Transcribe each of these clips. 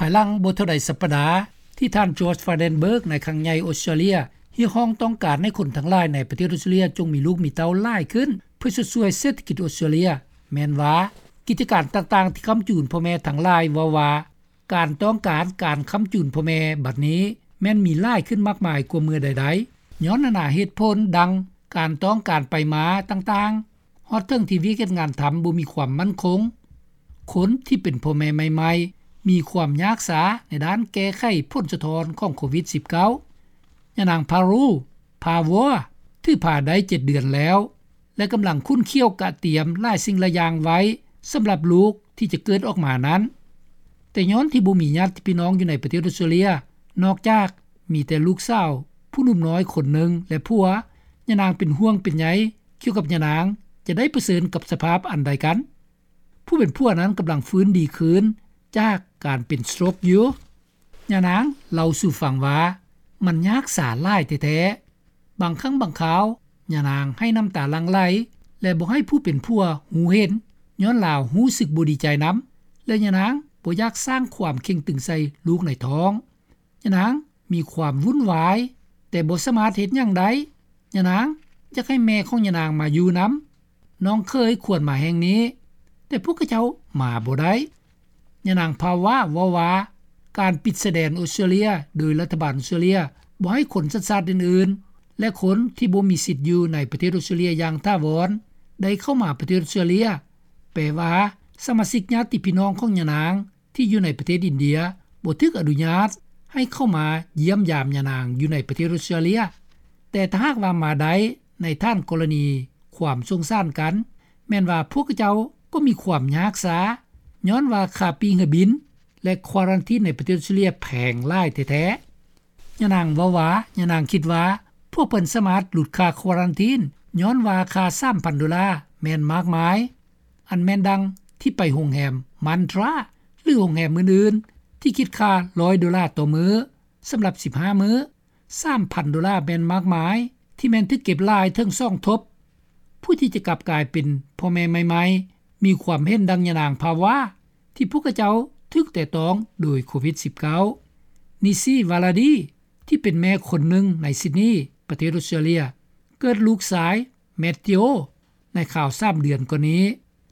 ພາຍຫຼັງບໍ່ເທົ່າໃດສັບປະດາ ທີ່ທ່ານ George Frydenberg ນາຍຄັງໃຫຍ່ອົດສະຕຣາເລຍ ຮຽກຮ້ອງຕ້ອງການໃຫ້ຄົນທັງຫຼາຍໃນປະເທດອົດສະຕຣາເລຍ ຈົ່ງມີລູກມີເຕົ້າຫຼາຍຂຶ້ນ ເພື່ອຊົດຊ່ວຍເສດຖະກິດອົດສະຕຣາເລຍ ແມ່ນວ່າ ກິດຈະການຕ່າງໆທີ່ຄ້ຳຈູນພໍ່ແມ່ທັງຫຼາຍ ເວົ້າວ່າ ການຕ້ອງການການຄ້ຳຈູນພໍ່ແມ່ບັດນີ້ ແມ່ນມີຫຼາຍຂຶ້ນມາກມາຍກວ່າເມື່ອໃດໆ ຍ້ອນນານາເຫດຜົນ ດັ່ງ ການຕ້ອງການໄປມາຕ່າງໆ ຮອດເຖິງທີ່ວຽກເຮັດງານທຳບໍ່ມີຄວາມໝັ້ນຄົງ, ຄົນທີ່ເປັນພໍ່ແມ່ໃໝ່ໆ ມີຄວາມຍາກສາໃນດ້ານແກ້ໄຂຜົນສະທ້ອນຂອງໂຄວິດ-19. ຍານາງ Parul Pawar ຖືພາໄດ້ເຈັດເດືອນແລ້ວ ແລະ ກຳລັງຂຸ້ນຂ້ຽວກະຕຽມຫຼາຍສິ່ງຫຼາຍຢ່າງໄວ້ ສຳລັບລູກທີ່ຈະເກີດອອກມານັ້ນ. ແຕ່ຍ້ອນທີ່ບໍ່ມີຍາດພີ່ນ້ອງຢູ່ໃນປະເທດອົດສະຕຣາເລຍ ນອກຈາກມີແຕ່ລູກສາວຜູ້ໜຸ່ມນ້ອຍຄົນໜຶ່ງ ແລະ ຜົວ, ຍານາງເປັນຫ່ວງເປັນໃຍກ່ຽວກັບຍານາງຈະໄດ້ປະເຊີນກັບສະພາບອັນໃດກັນ. ຜູ້ເປັນຜົວນັ້ນກຳລັງຟື້ນດີຄືນຈາກການເປັນສະໂຕຣກຢູ່. ຍານາງເລົ່າສູ່ຟັງວ່າ ມັນຍາກສາຫຼາຍແທ້ໆ. ບາງຄັ້ງບາງຄາວ ຍານາງໄຫ້ນ້ຳຕາຫຼັ່ງໄຫຼ ແລະ ບໍ່ໃຫ້ຜູ້ເປັນຜົວຮູ້ເຫັນ ຍ້ອນລາວຮູ້ສຶກບໍ່ດີໃຈນຳ ແລະ ຍານາງບໍ່ຢາກສ້າງຄວາມເຄັ່ງຕຶງໃສ່ລູກໃນທ້ອງ. ຍານາງມີຄວາມວຸ້ນວາຍ ແຕ່ບໍ່ສາມາດເຮັດຫຍັງໄດ້. ຍານາງຢາກໃຫ້ແມ່ຂອງຍານາງມາຢູ່ນຳ. ນ້ອງເຂີຍຄວນມາແຫ່ງນີ້, ແຕ່ພວກເຂົາເຈົ້າມາບໍ່ໄດ້. ຍານາງພາວາເວົ້າວ່າ ການປິດຊາຍແດນອົດສະຕຣາເລຍໂດຍລັດຖະບານອົດສະຕຣາເລຍ ບໍ່ໃຫ້ຄົນສັນຊາດອື່ນໆ ແລະ ຄົນທີ່ບໍ່ມີສິດຢູ່ໃນປະເທດອົດສະຕຣາເລຍຢ່າງຖາວອນ ໄດ້ເຂົ້າມາປະເທດອົດສະຕຣາເລຍ ແປວ່າ ສະມາຊິກຍາດຕິພີ່ນ້ອງຂອງຍານາງ ທີ່ຢູ່ໃນປະເທດອິນເດຍ ບໍ່ຖືກອະນຸຍາດໃຫ້ເຂົ້າມາຢ້ຽມຢາມຍານາງຢູ່ໃນປະເທດອົດສະຕຣາເລຍ. ແຕ່ຖ້າຫາກວ່າມາໄດ້ໃນຖານກໍລະນີຄວາມສົງສານກັນ ແມ່ນວ່າພວກເຂົາເຈົ້າກໍມີຄວາມຍາກສາ ຍ້ອນວ່າຄ່າປີ້ເຮືອບິນ ແລະ quarantine ໃນປະເທດອົດສະຕຣາເລຍແພງຫຼາຍແທ້ໆ. ຍານາງເວົ້າວ່າ ຍານາງຄິດວ່າ ພວກເພິ່ນສາມາດຫຼຸດຄ່າ quarantine ຍ້ອນວ່າຄ່າສາມພັນໂດລາແມ່ນມາກມາຍ. ອັນແມ່ນດັ່ງທີ່ໄປໂຮງແຮມ Mantra ຫຼື ໂຮງແຮມອື່ນໆ ທີ່ຄິດຄ່າຮ້ອຍໂດລາຕໍ່ມື້ ສຳລັບສິບຫ້າມື້. ສາມພັນໂດລາແມ່ນມາກມາຍ ທີ່ແມ່ນຖືກເກັບຫຼາຍເຖິງສອງທົບ. ຜູ້ທີ່ຈະກັບກາຍເປັນພໍ່ແມ່ໃໝ່ໆ ມີຄວາມເຫັນດັ່ງຍານາງພາວາ ທີ່ພວກເຂົາເຈົ້າຖືກແຕະຕ້ອງໂດຍໂຄວິດ-19. ນິຊີ ວາລາດີ ທີ່ເປັນແມ່ຄົນໜຶ່ງໃນຊິດນີ ປະເທດອົດສະຕຣາເລຍ ເກີດລູກຊາຍ ແມດທິໂອ ໃນຄາວສາມເດືອນກ່ອນນີ້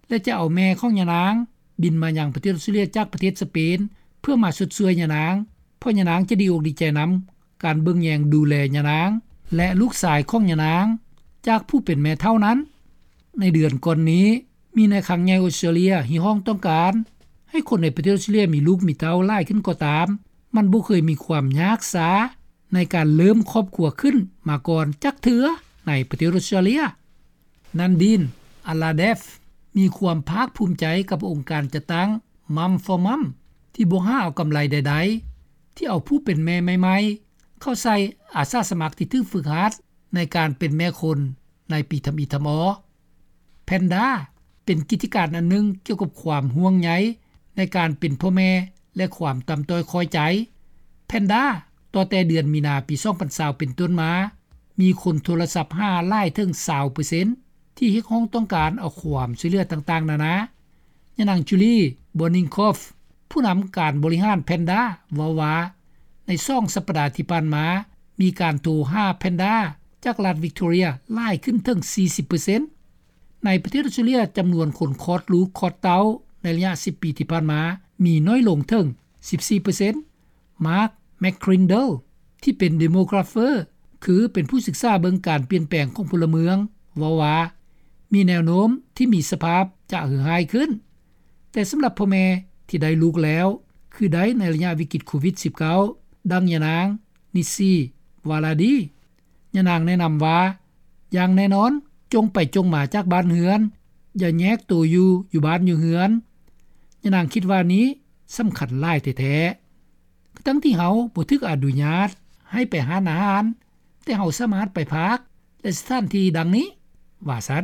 ແລະ ຈະເອົາແມ່ຂອງຍານາງບິນມາຍັງປະເທດອົດສະຕຣາເລຍຈາກປະເທດສະເປນ ເພື່ອມາຊົດຊ່ວຍຍານາງ ເພາະຍານາງຈະດີອົກດີໃຈນຳການເບິ່ງແຍງດູແລຍານາງ ແລະ ລູກຊາຍຂອງຍານາງ ຈາກຜູ້ເປັນແມ່ເຖົ້ານັ້ນ. ໃນເດືອນກ່ອນນີ້ ມີນາຍຄັງໃຫຍ່ອົດສະຕຣາເລຍຮຽກຮ້ອງຕ້ອງການໃຫ້ຄົນໃນປະເທດອົດສະຕຣາເລຍມີລູກມີເຕົ້າຫຼາຍຂຶ້ນກໍຕາມ, ມັນບໍ່ເຄີຍມີຄວາມຍາກສາໃນການເລີ່ມຄອບຄົວຂຶ້ນມາກ່ອນຈັກເທື່ອໃນປະເທດອົດສະຕຣາເລຍ. ນັນດີນ ອາລາເດຟ ມີຄວາມພາກພູມໃຈກັບອົງການຈັດຕັ້ງ Mum for Mum ທີ່ບໍ່ຫາເອົາກຳໄລໃດໆ ທີ່ເອົາຜູ້ເປັນແມ່ໃໝ່ໆ ເຂົ້າໃສ່ອາສາສະໝັກທີ່ຖືກຝຶກຫັດໃນການເປັນແມ່ຄົນໃນປີທຳອິດທຳອໍ. ແພນດາ ເປັນກິດຈະການອັນໜຶ່ງກ່ຽວກັບຄວາມຫ່ວງໃຍໃນການເປັນພໍ່ແມ່ ແລະ ຄວາມຕ່ຳຕ້ອຍຂ້ອຍໃຈ. ແພນດາ ຕໍ່ແຕ່ເດືອນມີນາປີສອງພັນຊາວເປັນຕົ້ນມາ ມີຄົນໂທລະສັບຫາຫຼາຍເຖິງຊາວເປີເຊັນ ທີ່ຮຽກຮ້ອງຕ້ອງການເອົາຄວາມຊ່ວຍເຫຼືອຕ່າງໆນານາ. ຍານາງ Julie Boningkoff ຜູ້ນຳການບໍລິຫານແພນດາ ເວົ້າວ່າ ໃນສອງສັບປະດາທີ່ຜ່ານມາ ມີການໂທຫາແພນດາຈາກລັດວິກຕໍເຣຍຫຼາຍຂຶ້ນເຖິງສີ່ສິບເປີເຊັນ. ໃນປະເທດອົດສະຕຣາເລຍ ຈຳນວນຄົນຄອດລູກຄອດເຕົ້າໃນໄລຍະສິບປີທີ່ຜ່ານມາ ມີນ້ອຍລົງເຖິງສິບສີ່ເປີເຊັນ. ມາກ ແມັກຄຣິນເດີລ ທີ່ເປັນ Demographer ຄືເປັນຜູ້ສຶກສາເບິ່ງການປ່ຽນແປງຂອງພົນລະເມືອງ ເວົ້າວ່າ ມີແນວໂນ້ມທີ່ມີສະພາບຈະເຫືອຮ້າຍຂຶ້ນ, ແຕ່ສຳລັບພໍ່ແມ່ທີ່ໄດ້ລູກແລ້ວ ຄືໄດ້ໃນໄລຍະວິກິດໂຄວິດ-19, ດັ່ງຍານາງ ນິຊີ ວາລາດີ. ຍານາງແນະນຳວ່າ ຢ່າງແນ່ນອນ ຈົ່ງໄປຈົ່ງມາຈາກບ້ານເຮືອນ, ຢ່າແຍກໂຕຢູ່ ຢູ່ບ້ານຢູ່ເຮືອນ. ຍານາງຄິດວ່ານີ້ສຳຄັນຫຼາຍແທ້ໆ. ທັງທີ່ເຮົາບໍ່ຖືກອະນຸຍາດໃຫ້ໄປຮ້ານອາຫານ, ແຕ່ເຮົາສາມາດໄປພາກ ແລະ ສະຖານທີ່ດັ່ງນີ້, ວ່າຊັ້ນ.